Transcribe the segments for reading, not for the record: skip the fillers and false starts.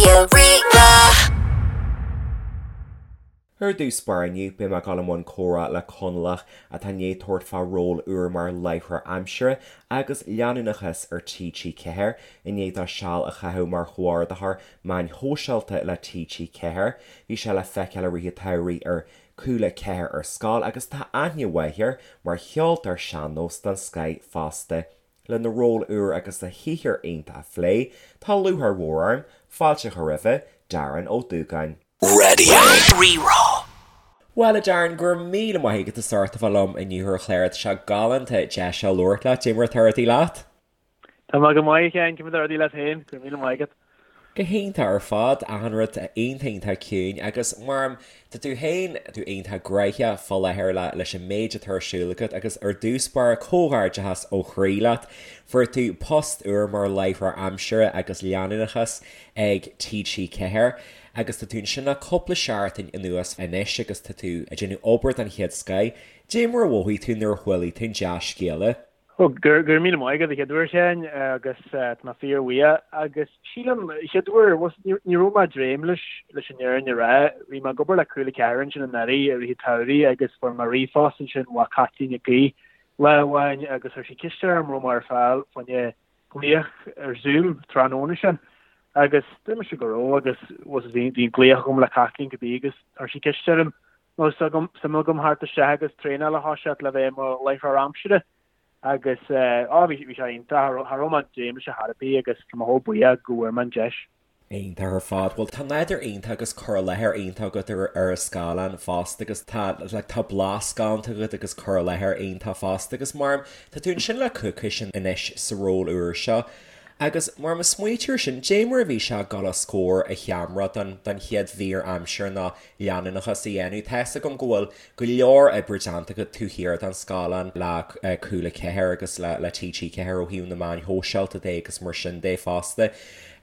Raidió Rí-Rá. Ar dtús báire inniu, beidh mé ag dul i mbun comhrá le Conallach atá i ndiaidh tabhairt fá ról úr mar láithreoir aimsire agus leanúnachais ar TG4, i ndiaidh dó seal a chaitheamh mar chomhordaitheoir meáin shóisialta le TG4. Bhí sé le feiceáil i rith an tsamhraidh ar Cúla 4 ar Scoil agus tá aithne mhaith air mar cheoltóir sean-nós den scoith fosta. Lena ról úr agus a shaothar iontach a phlé, tá lúcháir mhór orm fáilte a chur roimhe, Darren Ó Dúgáin. Raidió Rí-Rá. Bhuel, a Darren, go raibh míle maith agat as ucht a bheith liom inniu ar an chlár. Tá sé galánta deis a labhairt leat. Cad é mar atá rudaí leat? Tá mé go maith, a Sheáin, cad é mar atá rudaí leat féin? Go raibh míle maith agat. Go hiontach ar fad, achan rud iontach iontach ciúin agus mar tá tú féin, tú iontach gnoitheach fá láthair le leis an méid atá ar siúl agat agus ar dtús báire comhghairdeachas ó chroí leat. Fuair tú post úr mar láithreoir aimsire agus leanúnachais ag TG4 agus tá tú ansin le cúpla seachtain anuas anois agus tá tú ag déanamh obair den chéad scoith. Cad é mar a mhothaigh tú nuair a chuala tú an dea-scéala? Ó, go raibh míle maith agat a chéad uair, a Sheáin, agus tá mé fíorbhuíoch. Agus sílim, a chéad uair, ní raibh mé ag dréim leis, leis an fhírinne a rá. Bhí mé ag obair le Cúla 4 ansin anuraidh i rith an tsamhraidh agus fuair mé ríomhphost ansin ó Caitlín Nic Aoidh lá amháin agus chuir sí ceist orm raibh mé ar fáil fá choinne glaoch ar Zoom tráthnóna sin. Agus dúirt mise go raibh agus bhí an glaoch agam le Caitlín cibé agus chuir sí ceist orm An raibh suim agam theacht isteach agus traenáil a thoiseacht le bheith i mo láithreoir aimsire agus á bhí sé iontach, cha raibh mé ag dréim leis ar chor ar bith agus tá mé chomh buíoch go bhfuair mé an deis. Iontach ar fad. Bhuel tá nádúr iontach agus cur i láthair iontach agat ar ar an scáileán fosta agus tá like tá blas galánta agat agus cur i láthair iontach fosta agus mar tá tú ansin le coicís anois sa ról úr seo agus mar má smaoitíonn tú air sin, cad é mar a bhí sé ag dul os comhair an cheamara don don chéad mhír aimsire nó leanúnachas a dhéanamh. Tá's agam go bhfuil go leor oibre déanta agat taobh thiar den scáileán le Cúla 4 agus le TG4 ó thaobh na meáin shóisialta de agus mar sin de fosta.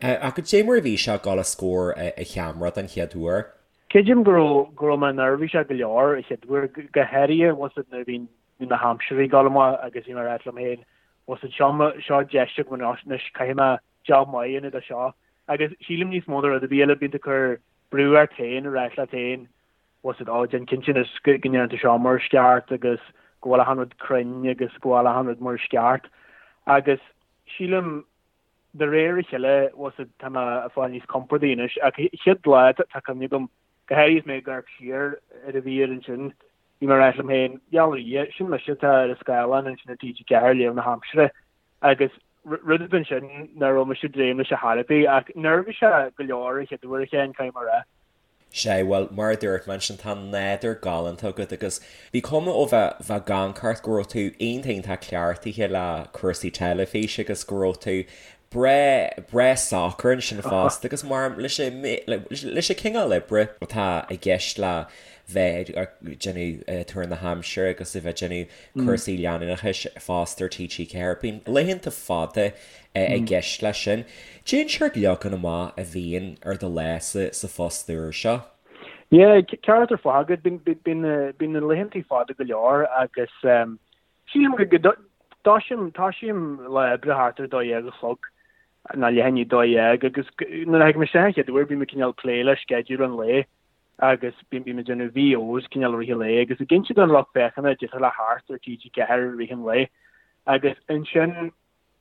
Ach cad é mar a bhí sé ag dul os comhair an cheamara den chéad uair? Creidim go raibh go raibh mé neirbhíseach go leor an chéad uair, go háirithe bhfuil 's agat nuair a bhí na haimsirí ag dul amach agus bhí mé ag ráit liom féin bhfuil 's agat seo seo deis agam anois caithfidh mé job maith a dhéanamh de seo. Agus sílim níos mó ná rud ar bith eile bíonn tú ag cur brú ort féin ag ráit leat féin, bhfuil 's agat, ó, déan cinnte anois go ndéanann tú seo mar is ceart agus go bhfuil achan rud cruinn agus go bhfuil achan rud mar is ceart. Agus sílim de réir a chéile, bhfuil 's agat, tá mé ag fáil níos compordaí anois. Ach an chéad lá, tá cuimhne agam, go háirithe is mé ag amharc siar ar an mhír ansin, bhí mé ag ráit liom féin, gheall ar Dhia, sin mise atá ar an scáileán ansin ar TG4 ag léamh na haimsire. Agus rud ansin nach raibh mise ag dréim leis ar chor ar bith, ach neirbhíseach go leor an chéad uair a Sheáin, caithfidh mé a rá. Sea, bhuel, mar a dúirt mé ansin, tá nádúr galánta agat agus bhí cuma ó bheith, bheith ag amharc ort go raibh tú iontach, iontach cleachtaithe le cúrsaí teilifíse agus go raibh tú breá, breá socair ansin fosta agus mar, leis an, leis an cineál oibre atá i gceist le bheith ag déanamh tuar na haimsire agus a bheith ag déanamh cúrsaí leanúnachais fosta ar TG4. Bíonn laethanta fada i gceist leis sin. Cén seort leagan amach a bhíonn ar do lá sa phost úr seo? Yeah, ceart ar fad agat. Bíonn na laethanta fada go leor agus sílim go dtosaím tosaím lá oibre thart ar 12 a chlog nó leath i ndiaidh 12 agus nuair a thagaim isteach an chéad uair bím ag cineál plé le sceideal an lae agus bím ag déanamh VOs cineál i rith an lae agus ag inse don lucht féachana caidé atá le theacht ar TG4 i rith an lae agus ansin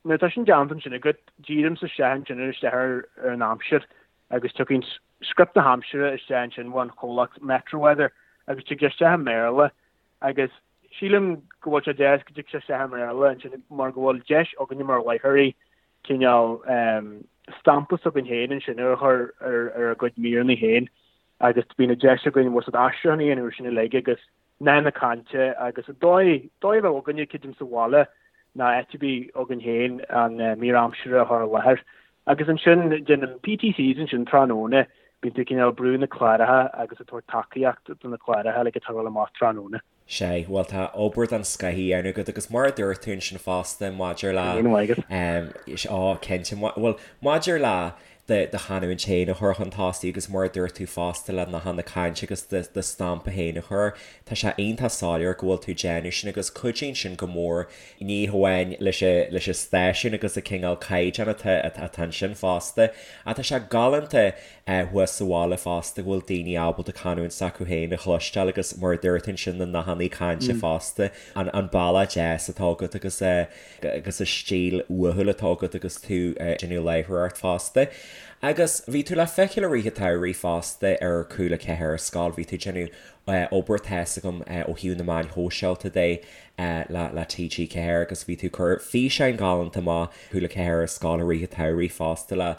nuair atá sin déanta ansin agat dírímse isteach ansin ar isteach ar an aimsir agus tiocfaidh script na haimsire isteach ansin ón chomhlacht Metro Weather agus tig sé isteach i mBéarla agus sílim go bhfuil sé deas go dtig sé isteach i mBéarla ansin mar go bhfuil deis againne mar láithreoirí cineál stampa s'againn féin ansin a chur ar ár gcuid míreanna féin agus bíonn an deis againn bhfuil 's agat aistriúchán a dhéanamh ar sin uilig agus nath na cainte agus an dóigh, dóigh a bheadh againne creidim sa bhaile ná áit ar bith againn féin an mír aimsire a chur i láthair. Agus ansin déanaim PTCs ansin tráthnóna, bíonn tú cineál ag brú na cláracha agus ag tabhairt tacaíocht do na cláracha uilig atá ag dul amach tráthnóna. Sea, bhuel tá obair den scoth á dhéanamh agat agus mar a dúirt tú ansin fosta maidir le, Go raibh míle maith agat. á, cinnte, bhuel maidir le. do do chanúint féin a chur chun tosaigh agus mar a dúirt tú fosta le nathanna cainte agus do do stampa féin a chur. Tá sé iontach soiléir go bhfuil tú ag déanamh sin agus cuidíonn sin go mór ní hamháin leis an leis an stáisiún agus an cineál caighdeán atá atá ansin fosta ach tá sé galánta thuas sa bhaile fosta go bhfuil daoine ábalta canúint s'acu féin a chloisteáil agus mar a dúirt tú ansin na nathanna cainte fosta an an bealach deas atá agat agus agus an stíl uathúil atá agat agus tú ag déanamh láithreoireacht fosta. Agus bhí tú le feiceáil i rith an tsamhraidh fosta ar Cúla 4 ar scoil, bhí tú ag déanamh obair tá's agam ó thaobh na meáin shóisialta de le TG4 agus bhí tú ag cur físeáin ghalánta amach Cúla 4 ar scoil i rith an tsamhraidh fosta le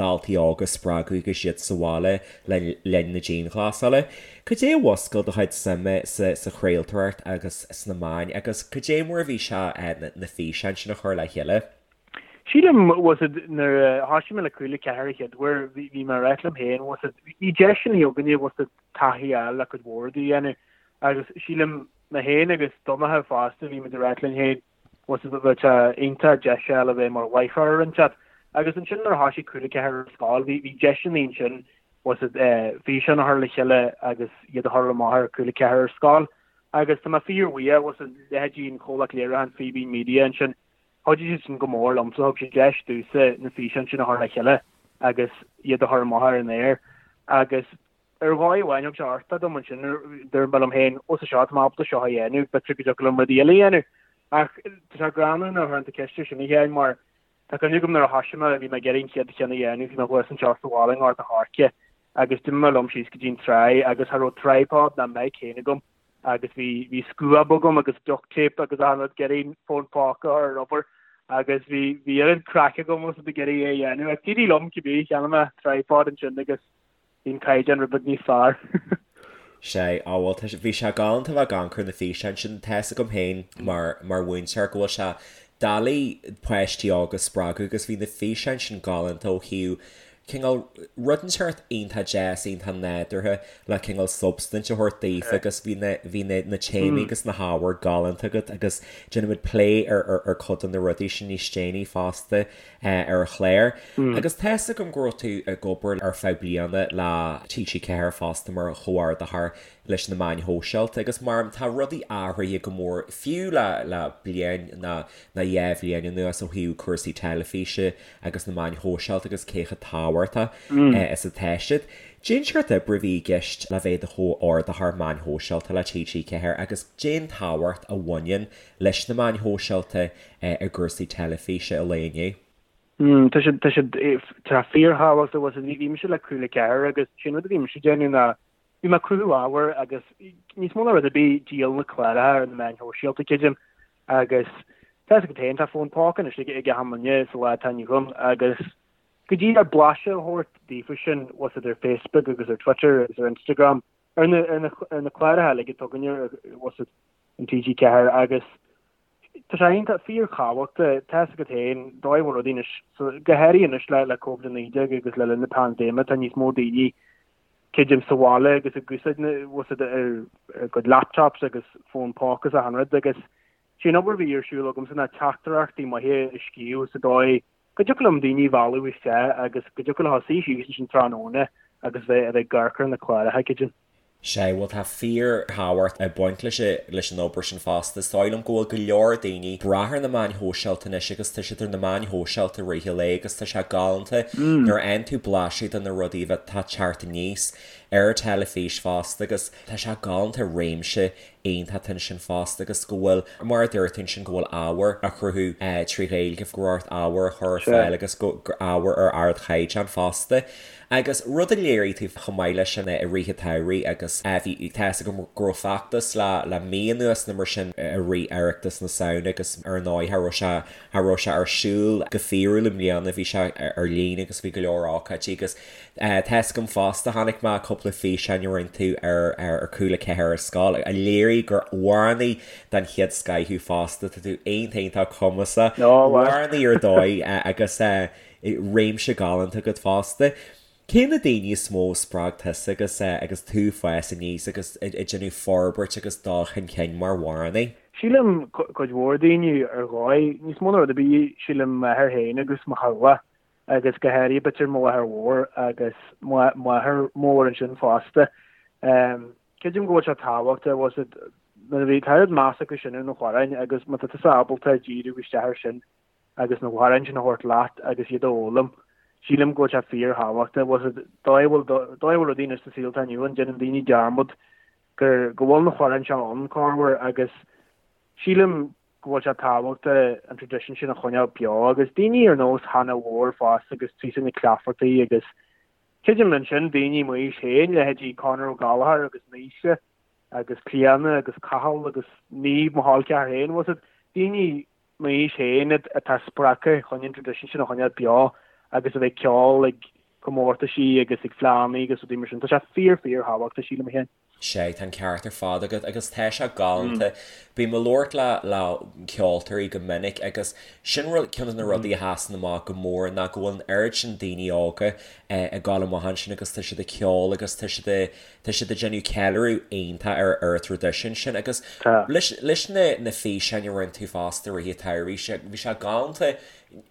daltaí óga a spreagadh agus iad sa bhaile le linn na dianghlasála. Cad é a mhúscail do chuid suime sa chraoltóireacht agus sna meáin agus cad é mar a bhí sé na físeáin sin a chur le chéile? Sílim, bhfuil a fhios a'd, nuair a thoisigh mé le Cúla 4 an chéad uair, bhí mé ag ráit liom féin, bhfuil a fhios a'd, bhí deiseanna againne, bhfuil a fhios a'd, taithí a fháil le cuid mhór rudaí a dhéanamh agus sílim mé féin agus Donncha fosta, bhí muid ag ráit linn féin, bhfuil a fhios a'd, bheadh sé iontach deis a fháil a bheith mar láithreoir ar an chat. Agus ansin nuair a thoisigh Cúla 4 ar scoil, bhí, bhí deiseanna ansin, bhfuil a fhios a'd, físeáin a chur le chéile agus iad a chur amach ar Cúla 4 ar scoil. Agus tá mé fíorbhuíoch, bhfuil a fhios a'd, leithéidí an chomhlacht léiriúcháin Fíbín Media ansin, chuidigh siad sin go mór liomsa, thug siad deis domhsa na físeáin sin a chur le chéile agus iad a chur amach ar an aer. Agus ar dhóigh amháin thug sé uchtach dom ansin, dúirt mé liom féin, ó sa seo, tá mé ábalta seo a dhéanamh, b'fhéidir go dtiocfadh liom rudaí eile a dhéanamh. Ach tá sé greannmhar nuair a chuireann tú ceist air sin a Sheáin mar tá cuimhne agam nuair a thoisigh mé, bhí mé ag iarraidh an chéad cheann a dhéanamh, bhí mé thuas anseo sa bhaile i nGort a' Choirce agus d'imigh mé liom síos go dtí an tráigh agus cha raibh tripod ná mic féin agam agus bhí bhí scuab agam agus duct tape agus achan rud ag iarraidh fón póca a chur ar obair agus bhí bhí oiread craic agam agus ag iarraidh é a dhéanamh ach d'éirigh liom cibé cheannaigh mé tripod ansin agus bhí an caighdeán rud beag níos fearr. Sea, á bhuel tá sé bhí sé galánta bheith ag amharc ar na físeáin sin tá's agam féin mar mar mhúinteoir go bhfuil sé doiligh páistí óga a spreagadh agus bhí na físeáin sin galánta ó thaobh cineál rud inteacht iontach deas, iontach nádúrtha le cineál substaint a thabhairt daofa agus bhí na, bhí na, na téamaí agus na hábhair galánta agat agus déanfaimid plé ar, ar, ar cuid de na rudaí sin níos déanaí fosta ar an chlár. Agus tá's agam go raibh tú ag obair ar feadh bliana le TG4 fosta mar chomhordaitheoir leis na meáin shóisialta agus mar tá rudaí athraithe go mór fiú le, le bliain nó, nó dhá bhliain anuas ó thaobh cúrsaí teilifíse agus na meáin shóisialta agus cé chomh tábhachtach is atá siad. Cén seort oibre a bhí i gceist le bheith i do chomhordaitheoir meáin shóisialta le TG4 agus cén tábhacht a bhaineann leis na meáin shóisialta i gcúrsaí teilifíse an lae inniu? Tá siad, tá siad, tá fíorthábhachtach, bhfuil a fhios a'd, bhí mise le Cúla 4 agus sin rud a bhí mise ag déanamh ná bhí mé ag cruthú ábhair agus níos mó ná rud ar bith díol na cláracha ar na meáin shóisialta creidim agus tá a fhios agat féin tá fón póca anois ag achan duine sa lá atá inniu ann agus go díreach blaiseadh a thabhairt daofa sin bhfuil a fhios a'd ar Facebook agus ar Twitter agus ar Instagram ar na ar na ar na cláracha uilig atá againne bhfuil a fhios a'd in TG4 agus tá sé iontach fíorthábhachtach tá a fhios agat féin dóigh a bhfuil rudaí anois so go háirithe anois le le Covid-19 agus le linn na paindéime tá níos mó daoine creidim sa bhaile agus ag úsáid na bhfuil a fhios a'd ar a gcuid laptops agus fón póca is achan rud agus sé an obair a bhí ar siúl agamsa ná teachtaireachtaí maithe a scríobh sa dóigh go dtiocfadh liom daoine a mhealladh isteach agus go dtiocfadh leo suí síos ansin tráthnóna agus bheith a bheith ag amharc ar na cláracha creidim. Sea, bhuel tá fíor-thábhacht ag baint leis leis an obair sin fosta. Is dóigh liom go bhfuil go leor daoine ag brath ar na meáin shóisialta anois agus tá siad ar na meáin shóisialta i rith an lae agus tá sé galánta nuair a fhaigheann tú blaiseadh de na rudaí atá ag teacht aníos ar an teilifís fosta agus tá sé galánta réimse iontach ansin fosta agus go bhfuil, mar a dúirt tú ansin, go bhfuil ábhar á chruthú trí Ghaeilge, go raibh ort ábhar a chur ar fáil agus go ábhar ar ardchaighdeán fosta. Agus rud a léirigh tú chomh maith leis sin i rith an tsamhraidh agus bhí, tá fhios agam go raibh feachtas le le mí anuas nó mar sin i rith Oireachtas na Samhna agus ar ndóigh cha raibh sé, cha raibh sé ar siúl go fíorúil i mbliana, bhí sé ar líne agus bhí go leor ócáidí agus tá fhios agam fosta, chonaic mé cúpla físeán a rinne tú ar ar Cúla 4 ar scoil a léirigh gur amhránaí den chéad scoith thú fosta, tá tú iontach iontach cumasach, amhránaí ar dóigh agus réimse galánta agat fosta. Cé na daoine is mó a spreag tusa agus agus tú ag fás aníos agus ag déanamh forbairt agus dul chun cinn mar amhránaí? Sílim cuid mhór daoine ar dhóigh, níos mó ná rud ar bith, sílim m'athair féin agus mo theaghlach. agus go háirithe b'fhéidir mo mháthair mhór agus m'athair mór ansin fosta. Creidim go bhfuil sé tábhachtach, bhfuil a fhios agat, nuair a bhí, tá oiread meas acu sin ar na hamhráin agus má tá tusa ábalta díriú isteach air sin agus na hamhráin sin a thabhairt leat agus iad a fhoghlaim, sílim go bhfuil sé fíorthábhachtach, bhfuil a fhios agat, dóigh a bhfuil, dóigh a bhfuil rudaí anois sa saol atá inniu ann, déanann daoine dearmad gur, go bhfuil na hamhráin seo ann, corruair, agus sílim go bhfuil sé tábhachtach an traidisiún sin a choinneáil beo agus daoine ar nós Hannah Mhór fosta agus Treasa Nic Laifeartaigh agus creidim ansin daoine m'aois féin, leithéidí Conor Ó Gallchóir agus Naoise agus Clíona agus Cathal agus Niamh mo chol ceathar féin, bhfuil a fhios agat, daoine m'aois féin atá spreagtha chun an traidisiún sin a choinneáil beo agus a bheith ag ceol ag comórtaisí agus ag fleánna agus rudaí mar sin. Tá sé fíor fíor thábhachtach sílim féin. Sea, tá an ceart ar fad agat agus tá sé galánta. Bím ag labhairt le le ceoltóirí go minic agus sin rud, ceann de na rudaí a sheasann amach go mór ná go bhfuil an oiread sin daoine óga ag dul amach ansin agus tá siad ag ceol agus tá siad ag tá siad ag déanamh ceiliúradh iontach ar ar an traidisiún sin agus leis leis na na físeáin a rinne tú fosta i rith an tsamhraidh, bhí sé galánta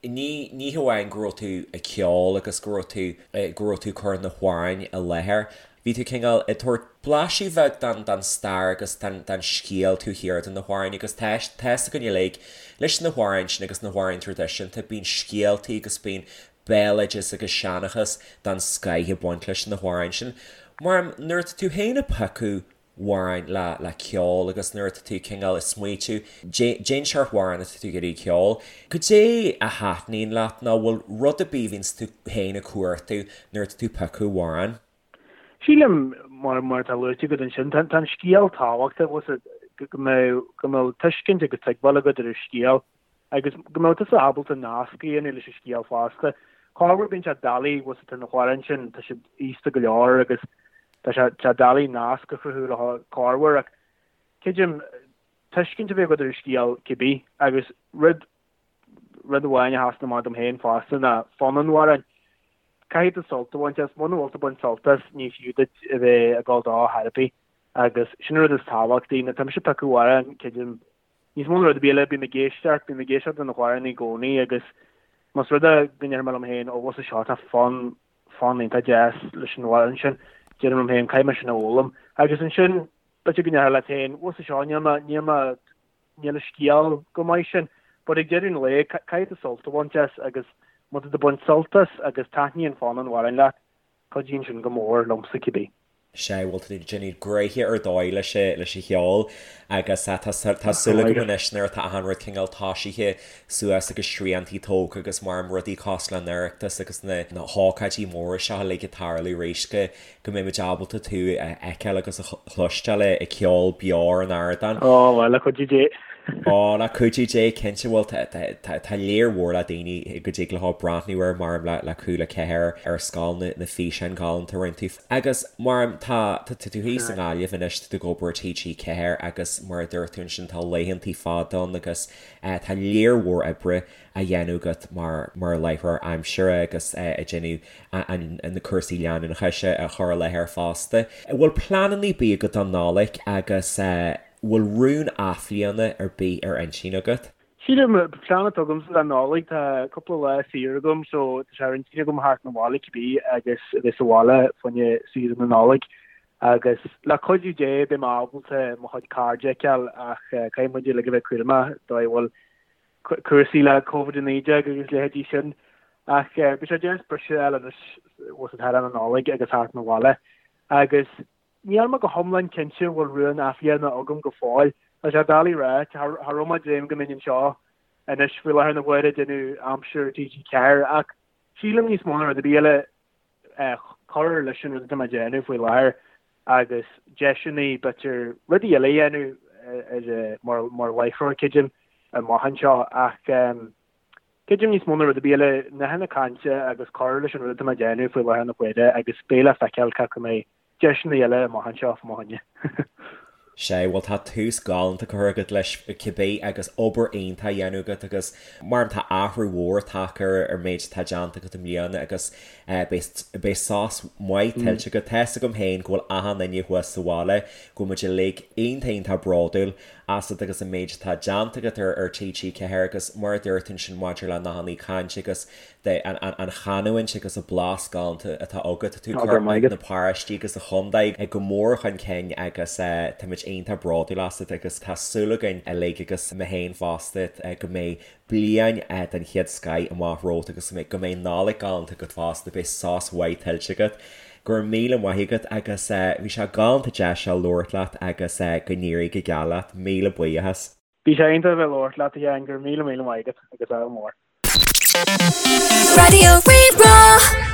ní ní hamháin go raibh tú ag ceol agus go raibh tú go raibh tú ag cur na hamhráin i láthair Bhí tú cineál ag tabhairt blaiseadh bheag den den stair agus den den scéal taobh thiar de na hamhráin agus tá tá fhios againn uilig leis na hamhráin sin agus na hamhráin traidisiúnta bíonn scéaltaí agus bíonn béaloideas agus seanchas den scoith ag baint leis na hamhráin sin. Mar nuair atá tú féin ag piocadh amhráin le le ceol agus nuair atá tú cineál ag smaoitiú cén seort amhrán atá tú ag iarraidh ceol, goidé a thaitníonn leat nó bhfuil rud ar bith a bhíonns tú féin ag cuartú nuair atá tú ag piocadh amhrán? Sílim, mar mar atá luaite agat ansin, tá an scéal tábhachtach, bhfuil a fhios agat, go mbeadh go mbeadh tuiscint agus tuigbheáil agat ar an scéal agus go mbeadh tusa ábalta nasc a dhéanamh leis an scéal fosta. Corruair bíonn sé doiligh, bhfuil a fhios agat, tá na hamhráin sin, tá siad aosta go leor agus tá sé tá sé doiligh nasc a chruthú leo corruair ach creidim tuiscint a bheith agat ar an scéal cibé agus rud Rud amháin a sheasann amach dom féin fosta ná fonn an amhráin. Caithfidh tú sult a bhaint as. Muna bhfuil tú ag baint sult as, ní fiú duit a bheith ag dul dó chor ar bith. Agus sin an rud is tábhachtaí. Nuair atá mise ag piocadh amhrán, creidim, níos mó ná rud ar bith eile, bím ag éisteacht, bím ag éisteacht do na hamhráin i gcónaí agus más rud é go ndeirim liom féin, ó bhfuil a fhios agat seo, tá fonn, fonn iontach deas leis an amhrán sin, deirim liom féin, caithfidh mé sin a fhoghlaim. Agus ansin, b'fhéidir go ndéarfá leat féin, bhfuil a fhios agat seo, níl mé, níl mé, níl an scéal go maith sin, but ag deireadh an lae, caithfidh tú sult a bhaint as agus má tá tú ag baint sult as agus taitníonn fonn an amhráin leat, cuidíonn sin go mór liomsa cibé. Sea, bhuel tá tú ag déanamh gnoithe ar dóigh leis leis an cheol agus tá tá súil agam anois nuair atá achan rud cineál toisithe suas agus sriantaí tógtha agus mar rudaí cosúil le an Oireachtas agus na na hócáidí móra seo uilig ag tarlú arís go go mbeidh muid ábalta tú a fheiceáil agus a chloisteáil ag ceol beo ar an ardán. Ó, bhuel, le cuidiú Dé. Ó, le cuidiú Dé, cinnte. Bhuel, tá léar mhór le daoine go dtig leo breathnú air mar le Cúla 4 ar scoil na físeáin ghalánta a rinne tú. Agus mar tá tú thíos i nGaillimh anois, tá tú ag obair i TG4 agus mar a dúirt tú ansin tá laethantaí fada ann agus tá léar mhór oibre á dhéanamh agat mar mar láithreoir aimsire agus ag déanamh na cúrsaí leanúnachais a chur i láthair fosta. An bhfuil pleananna ar bith agat don Nollaig agus an bhfuil rún athbhliana ar bith ar intinn agat? Sílim, plean atá agamsa don Nollaig, tá cúpla lá saor agam so tá sé ar intinn agam theacht 'na bhaile cibé agus a bheith sa bhaile fá choinne saoire na Nollag agus le cuidiú Dé beidh mé ábalta mo chuid cairde a fheiceáil ach caithfidh muid uilig a bheith cúramach dóigh a bhfuil cúrsaí le Covid-19 agus leithéidí sin. Ach beidh sé deas briseadh a fháil anois bhfuil a fhios agat thar an Nollaig agus theacht 'na bhaile. Agus níl mé go hiomlán cinnte an bhfuil rún athbhliana agam go fóill. Tá sé doiligh a rá, cha raibh mé ag dréim go mbeinn anseo anois faoi láthair na huaire ag déanamh aimsir TG4 ach sílim níos mó ná rud ar bith eile cur leis an rud atá mé ag déanamh faoi láthair agus deiseanna b'fhéidir rudaí eile a dhéanamh mar mar láithreoir creidim amach anseo ach creidim níos mó ná rud ar bith eile nathanna cainte agus cur leis an rud atá mé ag déanamh faoi láthair na huaire agus beidh le feiceáil cé acu an mbeidh deiseanna eile amach anseo fá mo choinne. Sea, bhuel tá tús galánta curtha agat leis cibé agus obair iontach á dhéanamh agat agus mar tá athrú mhór tagtha ar ar méid atá déanta agat i mbliana agus beidh beidh sos maith tuillte agat. Tá fhios agam féin go bhfuil achan duine thuas sa bhaile, go bhfuil muid uilig iontach iontach bródúil asat agus an méid atá déanta agat ar ar TG4 agus mar a dúirt ansin maidir le nathanna cainte agus de an chanúint agus an blas galánta atá agat. Tá tú ag cur na paróistí agus an chontae go mór chun cinn agus táimid iontach bródúil asat agus tá súil againn uilig agus mé féin fosta go mbeidh bliain den chéad scoith amach romhat agus go mbeidh Nollaig galánta agat fosta, beidh sos mhaith tuillte agat. Go raibh míle maith agat agus bhí sé galánta deis a labhairt leat agus go n-éirí go geal leat. Míle buíochas. Bhí sé iontach a bheith ag labhairt leat, a Sheáin, go raibh míle míle maith agat agus ádh mór. Raidió Rí-Rá.